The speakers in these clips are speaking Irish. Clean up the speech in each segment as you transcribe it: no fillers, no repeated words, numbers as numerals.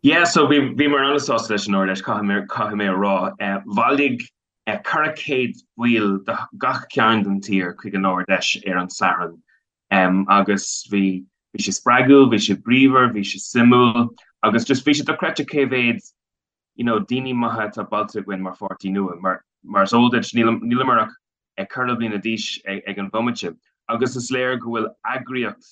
Yeah, so bhí bhíomar an-sásta leis an Ard-Fheis, caithfidh mé caithfidh mé a rá. Bhailigh 400 baill de gach cearn den tír chuig an Ard-Fheis ar an Satharn agus bhí bhí sé spreagúil, bhí sé bríomhar, bhí sé suimiúil agus just bhí sé dochreidte cé mhéad you know, daoine maithe atá bailithe againn mar pháirtí nua. Mar mar is eol duit, níleamar ach ceithre bliana d'aois ag an bhomaite agus is léir go bhfuil eagraíocht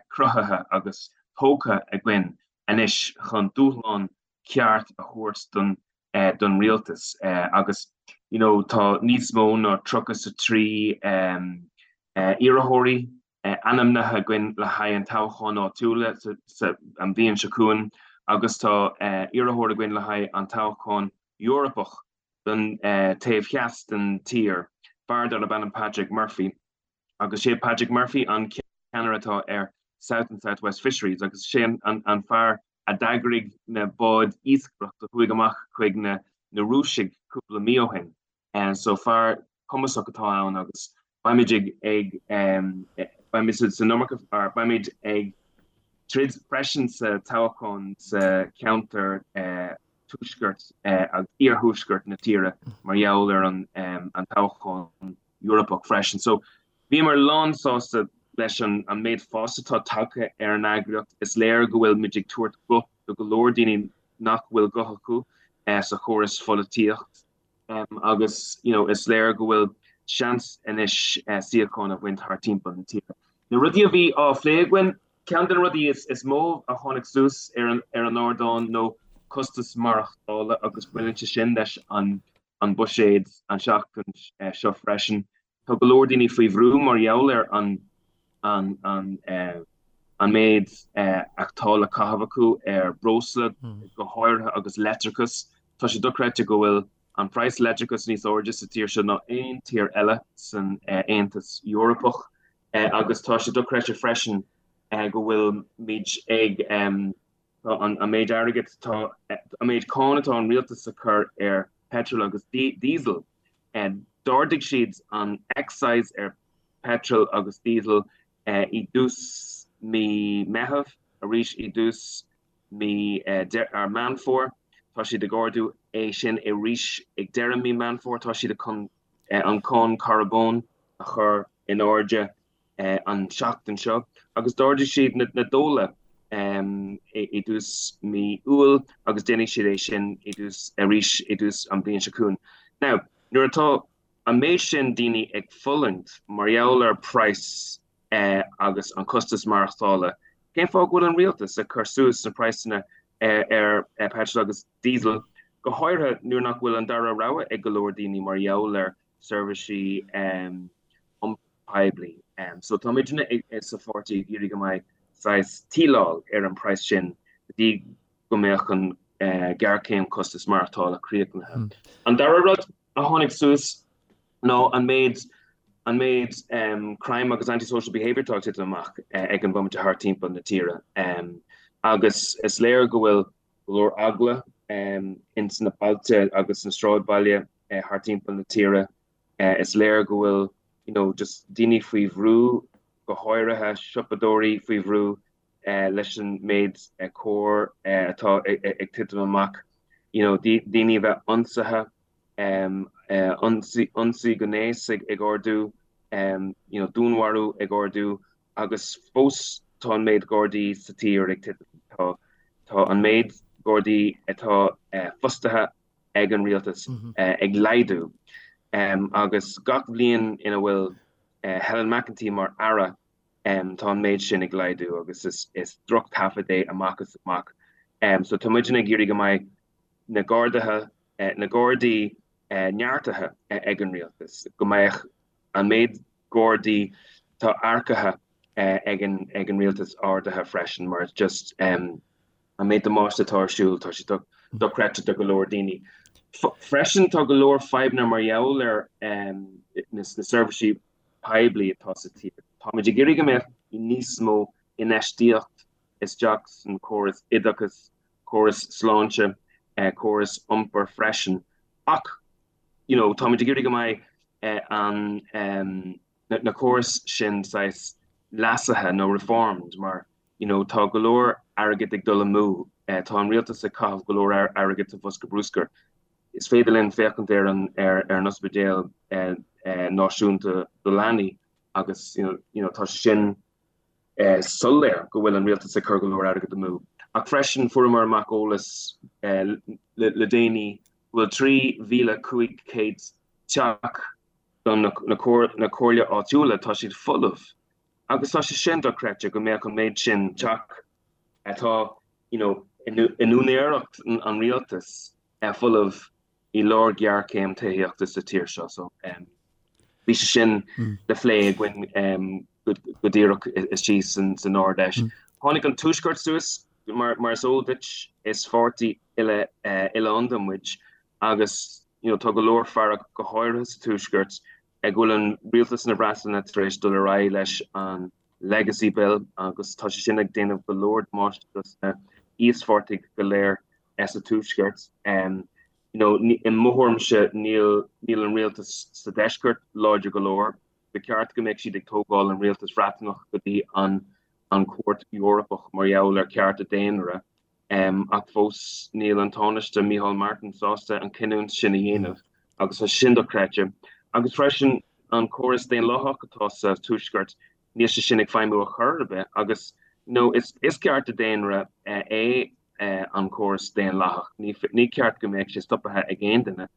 cruthaithe agus tógtha againn anois chun dúshlán ceart a thabhairt don don rialtas agus you know tá níos mó ná 33 iarrthóirí ainmnithe againn le haghaidh an toghcháin áitiúla sa an bhliain seo chugainn agus tá iarrthóir againn le haghaidh an toghchán Eorpach don taobh theas den tír, fear darb ainm Patrick Murphy. Agus sé Patrick Murphy an ceannaire atá ar South and South West Fisheries agus sé an fear a d'eagraigh na báid iascaireachta a chuaigh amach chuig na Rúisigh cúpla mí ó shin. So fear cumasach atá ann agus beimid ag ag beimid san iomarca or beimid ag troid freisin sa toghchán sa cheantar tuaisceart agus iarthuaisceart na tíre mar gheall ar an an toghchán Eorpach freisin. So bhíomar lán sásta leis an an méid fás atá tagtha ar an eagraíocht. Is léir go bhfuil muid ag tabhairt guth do go leor daoine nach bhfuil guth acu sa chóras pholaitíocht. Agus you know is léir go bhfuil seans anois suíochán a bhaint thart timpeall na tíre. Na rudaí a bhí á phlé againn, ceann de na rudaí is mó a tháinig suas ar an ar an ardán nó costas maireachtála agus baineann sé sin leis an an buiséad an seachtain seo freisin. Tá go leor daoine faoi bhrú mar gheall ar an an an an méid atá le caitheamh acu ar breosla go háirithe agus leictreachas. Tá sé dochreidte go bhfuil an praghas leictreachas níos airde sa tír seo ná aon tír eile san Aontas Eorpach agus tá sé dochreidte freisin go bhfuil muid ag tá an méid airgid tá an méid cáin atá an rialtas a chur ar petrol agus diesel. D'ardaigh siad an excise ar petrol agus diesel i dtús mí Meitheamh, arís i dtús mí Meán Fómhair. Tá siad ag ardú é sin arís ag deireadh mí Meán Fómhair. Tá siad chun an cáin carbóin a chur in airde an tseachtain seo agus d'ardaigh siad na dóla i dtús mí Iúil agus déanfaidh siad é sin i dtús arís i dtús an bhliain seo chugainn. Now, nuair atá an méid sin daoine ag fulaingt mar gheall ar praghas agus an costas maireachtála, cén fáth go bhfuil an rialtas ag cur suas na praghsanna ar petrol agus diesel, go háirithe nuair nach bhfuil an dara rogha ag go leor daoine mar gheall ar seirbhísí iompair poiblí. So tá muidne sa pháirtí ag iarraidh go mbeidh saghas tíleáil ar an praghas sin go dtí go mbeadh an géarchéim costas maireachtála críochnaithe. An dara rud a tháinig suas ná an méid an méid crime agus anti-social behaviour atá ag titim amach ag an bhomaite thart timpeall na tíre. Agus is léir go bhfuil go leor eagla ins na bailte agus sna sráidbhaile thart timpeall na tíre. Is léir go bhfuil you know just daoine faoi bhrú, go háirithe siopadóirí faoi bhrú leis an méid coir atá ag titim amach, you know daoine a bheith ionsaithe, ionsaí gnéis ag ardú, you know dúnmharú ag ardú agus fós tá an méid Gardaí sa tír ag titim. Tá tá an méid Gardaí atá fostaithe ag an rialtas ag laghdú agus gach bhliain ina bhfuil Helen McEntee mar aire tá an méid sin ag laghdú agus is drochthaifead é amach is amach. So tá muidne ag iarraidh go mbeidh na gardaithe, na Gardaí neartaithe ag an rialtas, go mbeadh an méid Gardaí atá earcaithe ag an rialtas ardaithe freisin mar just an méid damáiste atá ar siúl, tá sé dochreidte do go leor daoine. Freisin tá go leor fadhbanna mar gheall ar na seirbhísí poiblí atá sa tír. Táimid ag iarraidh go mbeadh níos mó infheistíocht isteach san córas oideachais, córas sláinte, córas iompair freisin. Ach you know táimid ag iarraidh go mbeidh an na córais sin saghas leasaithe nó reformed mar you know tá go leor airgead ag dul amú. Tá an rialtas ag caitheamh go leor airgid sa bhosca bruscair. Is féidir linn féachaint ar an ar an ospidéal náisiúnta do leanaí agus you know tá sé sin soiléir go bhfuil an rialtas ag cur go leor airgid amú. Ach freisin fuaireamar amach eolas le déanaí go bhfuil 3,500 teach don na comhairle áitiúla, tá siad folamh. Agus tá sé sin dochreidte go mbeadh an méid sin teach atá you know in úinéireacht an rialtais folamh i lár géarchéim tithíochta sa tír seo. So bhí sé sin le phlé againn go díreach istigh san Ard Fheis. Tháinig an Tuaisceart suas, mar is eol duit, is pháirtí oileánda muid agus you know tá go leor fearg go háirithe sa Tuaisceart go bhfuil an rialtas na Breataine tar éis dul ar aghaidh leis an Legacy Bill agus tá sé sin ag déanamh go leor damáiste dos na íospartaigh go léir sa Tuaisceart. You know, i mo thuairimse níl níl an rialtas sa deisceart láidir go leor. Ba cheart go mbeadh siad ag tógáil an rialtas Bhreataineach go dtí an an Chúirt Eorpach mar gheall ar cearta daonra. Ach fós níl an Tánaiste Micheál Martin sásta an cinniúint sin a dhéanamh agus tá sin dochreidte. Agus freisin an córas daonlathach atá sa Tuaisceart, níl sé sin ag feidhmiú ar chor ar bith agus you know is cearta daonra é an córas daonlathach. Ní ceart go mbeadh sé stoptha ag aon duine.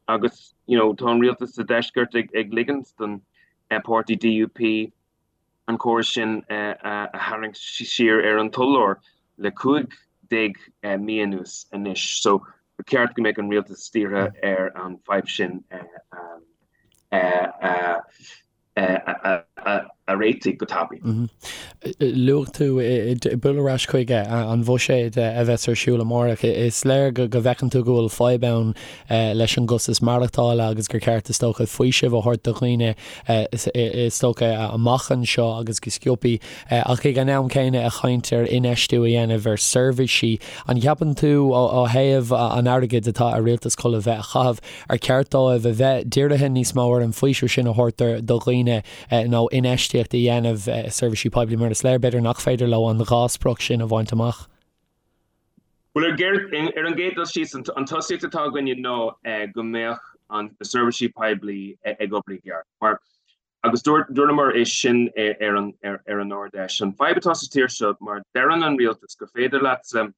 Agus you know tá an rialtas sa deisceart ag ligint don páirtí DUP an córas sin a tharraingt siar ar an t-urlár le 15 mí anuas anois. So ba cheart go mbeadh an rialtas dírithe ar an fadhb sin a a réitigh go tapaidh. Luaigh tú bualadh ar ais chuig an bhuiséad a bheas ar siúl amárach. Is léir go bhfeiceann tú go bhfuil fadhb ann leis an gcostas maireachtála agus gur ceart is dócha faoiseamh a thabhairt do dhaoine is dócha amach anseo agus go sciobthaí ach ag an am céanna ag caint ar infheistiú a dhéanamh ar seirbhísí. An gceapann tú ó thaobh an airgid atá ar rialtas chun a bheith a chaitheamh, ar cheart dóibh a bheith dírithe níos mó ar an bhfaoiseamh sin a thabhairt do dhaoine nó infheistíocht a dhéanamh i seirbhísí poiblí mar is léir b'fhéidir nach féidir leo an dhá sprioc sin a bhaint amach? Bhuel, ar an gcéad dul síos, an tosaíocht atá againne ná go mbeadh na seirbhísí poiblí ag obair i gceart. Mar, agus dúramar é sin ar an Ard-Fheis, an fadhb atá sa tír seo, mar deireann an rialtas gur féidir leatsa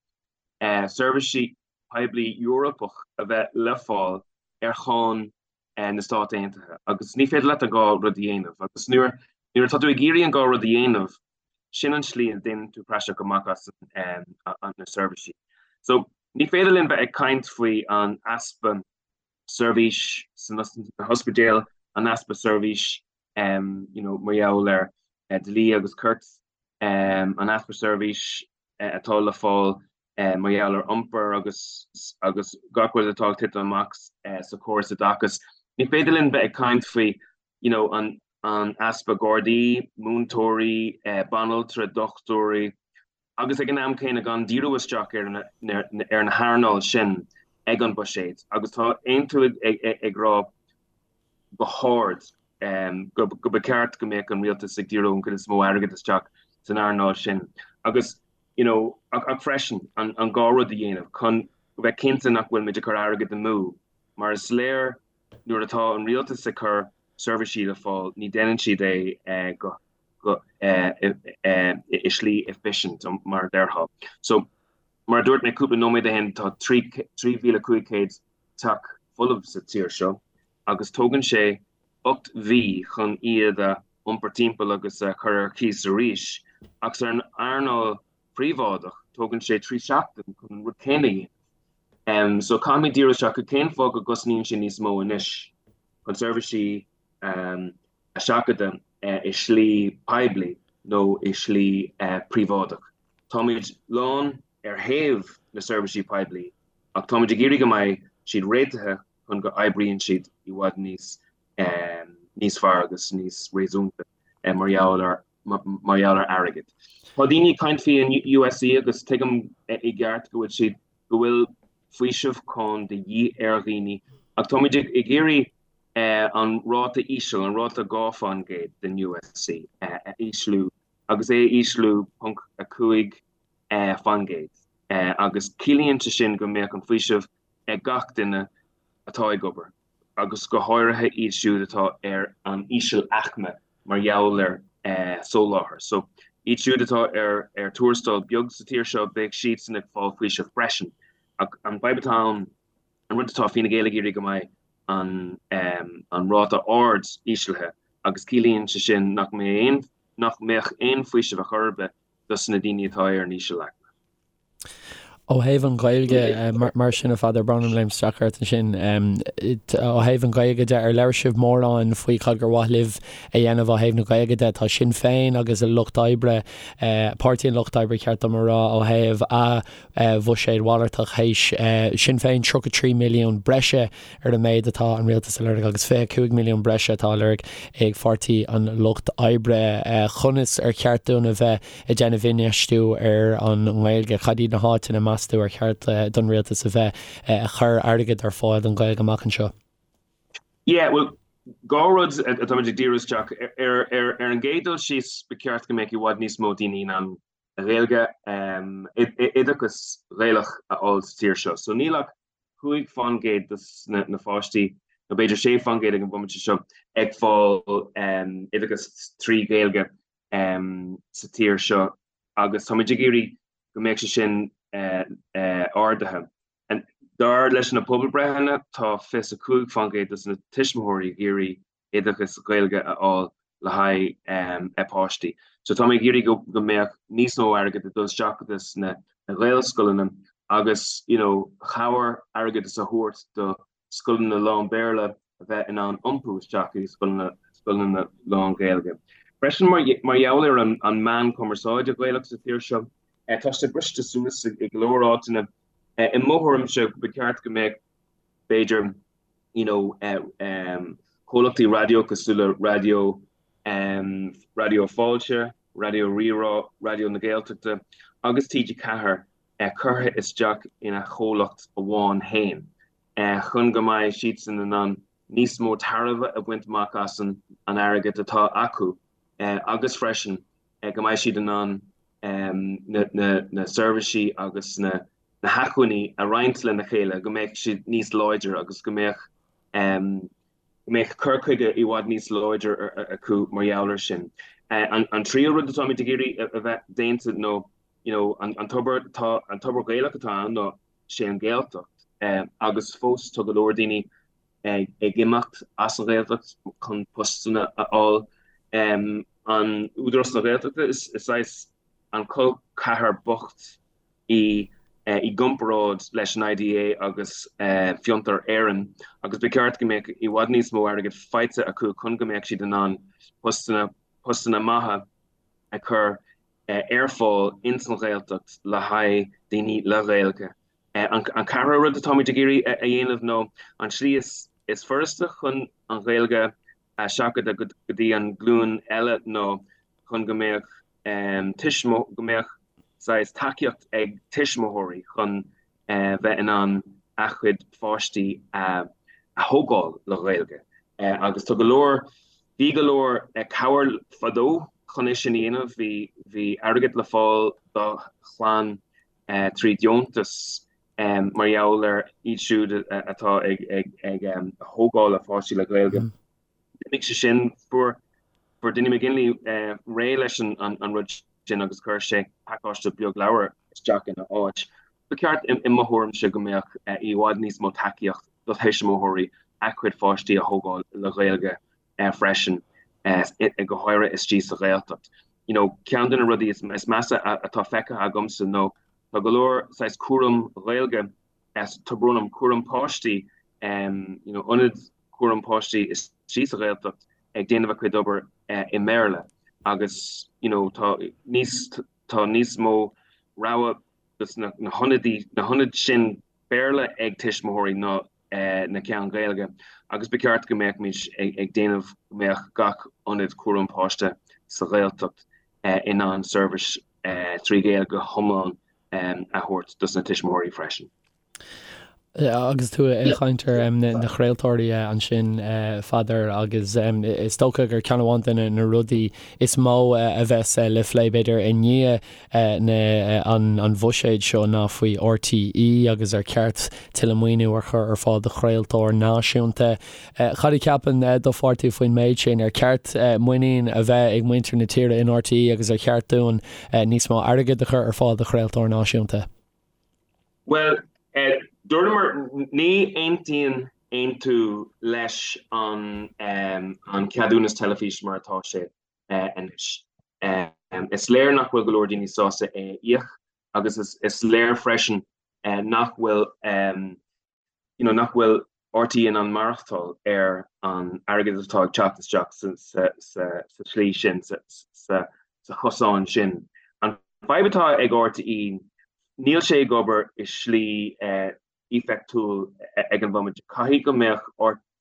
seirbhísí poiblí Eorpach a bheith le fáil ar cháin na Stát Aontaithe agus ní féidir leat an dhá rud a dhéanamh. Agus nuair atá tú ag iarraidh an dhá rud a dhéanamh, sin an tslí a ndéanann tú praiseach amach as na seirbhísí. So ní féidir linn bheith ag caint faoi an easpa seirbhís sna hospidéil, an easpa seirbhís you know, mar gheall ar dlí agus cirt, an easpa seirbhís atá le fáil mar gheall ar iompar agus agus gach rud atá ag titim amach sa chóras oideachais. Ní féidir linn bheith ag caint faoi you know, an, an easpa gardaí, múinteoirí, banaltra, dochtúirí, agus ag an am céanna gan díriú isteach ar na, ar na hearnáil sin ag an buiséad. Agus tá Aontú ag, ag, ag rá go hard go, go ba ceart go mbeadh an rialtas ag díriú an chuid is mó airgead isteach san earnáil sin. Agus you know, ach, ach freisin an, an dhá rud a dhéanamh chun go bheith cinnte nach bhfuil muid ag cur airgead amú, mar is léir nuair atá an rialtas ag cur seirbhísí le fáil, ní déanann siad é go, go, i slí efficient, mar a déarfá. So, mar a dúirt mé cúpla nóiméad ó shin, tá 3,500 teach folamh sa tír seo agus tógann sé 8 mhí chun iad a iompar timpeall agus a chur ar cíos arís, ach san earnáil phríobháideach tógann sé 3 seachtain chun an rud céanna a dhéanamh. So caithfimid díriú isteach ar cén fáth go gcosnaíonn sé níos mó anois chun seirbhísí a sheachadadh i slí poiblí nó i slí príobháideach. Táimid lán ar thaobh na seirbhísí poiblí ach táimid ag iarraidh go mbeidh siad réitithe chun go oibríonn siad i bhfad níos níos fearr agus níos réasúnta mar gheall ar mar gheall ar airgead. Tá daoine ag caint faoi an USC agus tuigim i gceart go bhfuil siad go bhfuil faoiseamh cáin de dhíth ar dhaoine ach táimid ag iarraidh an ráta íseal, an ráta 2% den USC a ísliú agus é a ísliú 0.5%. Agus ciallaíonn sé sin go mbeadh an faoiseamh ag gach duine atá ag obair, agus go háirithe iad siúd atá ar an íseal-aicme mar gheall ar soláthar. So, iad siúd atá ar ar tuarastal beag sa tír seo, beidh siadsan ag fáil faoiseamh freisin. Ach an fadhb atá ann, an rud atá Fine Gael ag iarraidh go mbeidh an an ráta ard íslithe agus ciallaíonn sé sin nach mbeidh aon nach mbeadh aon faoiseamh ar chor ar bith dos na daoine atá ar an íseal-aicme. Ó thaobh an Ghaeilge, mar sin, a Pheadair, brón orm léim isteach ort ansin, ó thaobh an Ghaeilge de, ar labhair sibh mórán faoi cad gur mhaith libh a dhéanamh ó thaobh na Gaeilge de? Tá Sinn Féin agus an Lucht Oibre, Páirtí an Lucht Oibre, ceart dom a rá, ó thaobh a bhuiséad mhalartach théis Sinn Féin 33 milliún breise ar an méid atá an rialtas a lorg agus 25 milliún breise atá á lorg ag Pháirtí an Lucht Oibre. Conas ar cheart dúinn a bheith ag déanamh infheistiú ar an nGaeilge? Cad iad na háiteanna, meas tú, ar cheart don rialtas a bheith ag cur airgead ar fáil don Ghaeilge amach anseo? Yeah, bhuel, dhá rud atáimid ag díriú isteach ar. Ar an gcéad dul síos, ba cheart go mbeadh i bhfad níos mó daoine in ann Gaeilge, oideachas Ghaelach a fháil sa tír seo. So níl ach 5% dos na pháistí, nó b'fhéidir 6% ag an bhomaite seo, ag fáil oideachas trí Ghaeilge sa tír seo agus táimid ag iarraidh go mbeadh sé sin ardaithe. Dar leis na pobalbreitheanna, tá 25% dos na tuismitheoirí ag iarraidh oideachas Gaeilge a fháil le haghaidh a bpáistí. So tá mé ag iarraidh go mbeadh níos mó airgead ag dul isteach dos na Gaelscoileanna agus you know cabhair airgeadas a thabhairt do scoileanna lán-Bhéarla a bheith in ann iompú isteach i scoileanna scoileanna lán-Ghaeilge. Freisin mar mar gheall ar an an meán cumarsáide Gaelach sa tír seo, tá sé briste suas i go leor áiteanna. I mo thuairimse ba cheart go mbeadh b'fhéidir you know comhlachtaí raidió cosúil le Raidió Raidió Fáilte, Raidió Rí-Rá, Raidió na Gaeltachta agus TG4 curtha isteach ina chomhlacht amháin féin chun go mbeidh siadsan in ann níos mó tairbhe a bhaint amach as an airgead atá acu agus freisin go mbeidh siad in ann na seirbhísí agus na na hacmhainní a roinnt lena chéile, go mbeadh siad níos láidre agus go mbeadh go mbeadh cur chuige i bhfad níos láidre acu mar gheall air sin. An tríú rud atáimid ag iarraidh a bheith déanta nó you know an tobar tá an tobar Gaelach atá ann ná sé an Ghaeltacht agus fós tá go leor daoine ag imeacht as an Ghaeltacht chun postanna a fháil. An Údarás na Gaeltachta is saghas an col ceathar bocht í i gcomparáid leis an IDA agus Fiontar Éireann agus ba cheart go mbeadh i bhfad níos mó airgid faighte acu chun go mbeadh siad in ann postanna postanna maithe a chur ar fáil ins an Ghaeltacht le haghaidh daoine le Gaeilge. An ceathrú rud atáimid ag iarraidh a dhéanamh nó an tslí is furasta chun an Ghaeilge a sheachadadh go dtí an glúin eile nó chun go mbeadh go mbeadh saghas tacaíocht ag tuismitheoirí chun bheith in ann a gcuid pháistí a thógáil le Gaeilge. Agus tá go leor, bhí go leor cabhair fadó chun é sin a dhéanamh, bhí, bhí airgead le fáil do chlann trí deontas mar gheall ar iad siúd atá ag, ag, ag thógáil a pháistí le Gaeilge. D'imigh sé sin, fuair fuair Dinny McGinley réidh leis an rud sin agus chuir sé pacáiste beag leabhar isteach ina áit. Ba cheart i mo thuairimse go mbeadh i bhfad níos mó tacaíocht do thuismitheoirí a gcuid pháistí a thógáil le Gaeilge freisin, go háirithe istigh sa Ghaeltacht. You know, ceann de na rudaí is measa atá feicthe agamsa nó tá go leor saghas cúram Ghaeilge, tá brón orm, cúram páistí, you know, ionad cúram páistí istigh sa Ghaeltacht ag déanamh a cuid obair i mBéarla agus you know tá níos tá níos mó rogha dos na na hionadaí na hionaid sin Béarla ag tuismitheoirí ná na ceann Gaeilge agus ba cheart go mbeadh muid ag déanamh go mbeadh gach ionad cúram páiste sa Ghaeltacht in ann seirbhís trí Ghaeilge go hiomlán a thabhairt dos na tuismitheoirí freisin. Agus tú ag caint ar na craoltóirí ansin, Pheadair, agus is dócha gur ceann amháin de na rudaí is mó a bheas le phlé, b'fhéidir, i ndiaidh an bhuiséid seo ná faoi RTÉ agus ar cheart tuilleadh maoiniú a chur ar fáil do chraoltóir náisiúnta. Cad a cheapann do pháirtí faoin méid sin? Ar cheart muinín a bheith ag muintir na tíre in RTÉ agus ar cheart dúinn níos mó airgid a chur ar fáil do chraoltóir náisiúnta? Bhuel, dúramar, ní aontaíonn Aontú leis an cheadúnas teilifíse mar atá sé anois. Is léir nach bhfuil go leor daoine sásta é a íoc agus is léir freisin nach bhfuil you know, nach bhfuil RTÉ in ann maireachtáil ar an airgead atá ag teacht isteach sa tslí sin, sa chosán sin. An fadhb atá ag RTÉ, níl sé ag obair i slí éifeachtúil ag an bhomaite. Caithfidh go mbeadh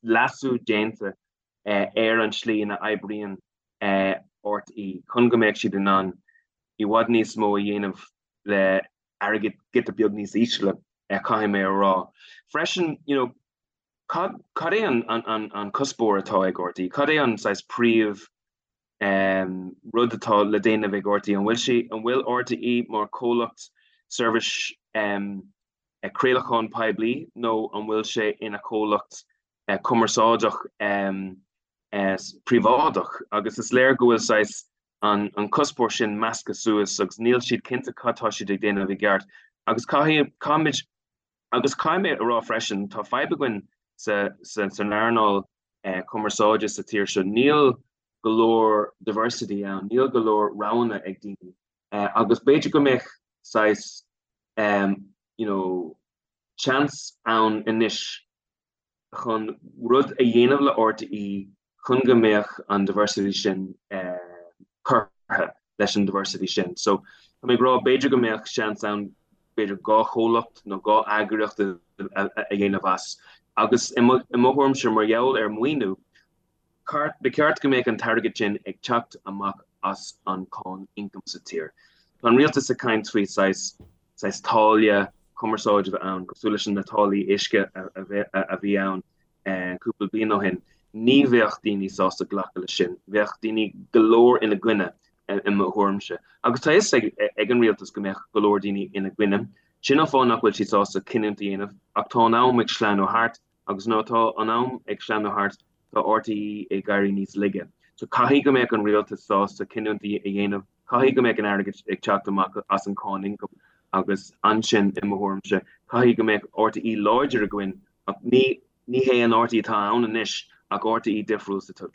leasú déanta ar an slí ina oibríonn RTÉ chun go mbeadh siad in ann i bhfad níos mó a dhéanamh le airgead giota beag níos ísle, caithfidh mé a rá. Freisin, you know, cad, cad é an, an, an, an cuspóir atá ag RTÉ? Cad é an saghas príomh um, rud atá le déanamh ag RTÉ? An bhfuil sé, an bhfuil RTÉ mar comhlacht seirbhís um, craolacháin poiblí nó an bhfuil sé ina chomhlacht uh, cumarsáideach um, uh, príobháideach? Agus is léir go bhfuil saghas an cuspóir sin measctha suas agus níl siad cinnte cad tá siad ag déanamh i gceart. Agus caithfidh, caithfimid, agus caithfidh mé a rá freisin, tá fadhb againn sa, sa, san earnáil cumarsáide sa tír seo. Níl go leor diversity ann, níl go leor roghanna ag daoine. Agus b'fhéidir go mbeadh saghas, you know, seans ann anois chun rud a dhéanamh le RTÉ chun go mbeadh an diversity sin curtha leis an diversity sin. So tá mé ag rá b'fhéidir go mbeadh seans ann b'fhéidir 2 chomhlacht nó 2 eagraíocht a dhéanamh as. Agus i mo thuairimse mar gheall ar maoiniú, ba cheart go mbeadh an t-airgead sin ag teacht amach as an cáin ioncaim sa tír. Tá an rialtas ag caint faoi saghas saghas táille cumarsáide a bheith ann, cosúil leis na táillí uisce a bhí ann cúpla bliain ó shin. Ní bheadh daoine sásta glacadh leis sin. Bheadh daoine go leor ina gcoinne, i mo thuairimse. Agus tá a fhios ag an rialtas go mbeadh go leor daoine ina gcoinne. Sin an fáth nach bhfuil siad sásta cinniúint a dhéanamh. Ach tá an am ag sleamhnú thart, agus nuair atá an am ag sleamhnú thart, tá RTÉ ag éirí níos laige. So caithfidh go mbeadh an rialtas sásta cinniúint a dhéanamh. Caithfidh go mbeadh an airgead ag teacht amach as an cáin ioncaim agus ansin, i mo thuairimse, caithfidh go mbeadh RTÉ láidir againn ach ní ní hé an RTÉ atá ann anois ach RTÉ difriúil sa.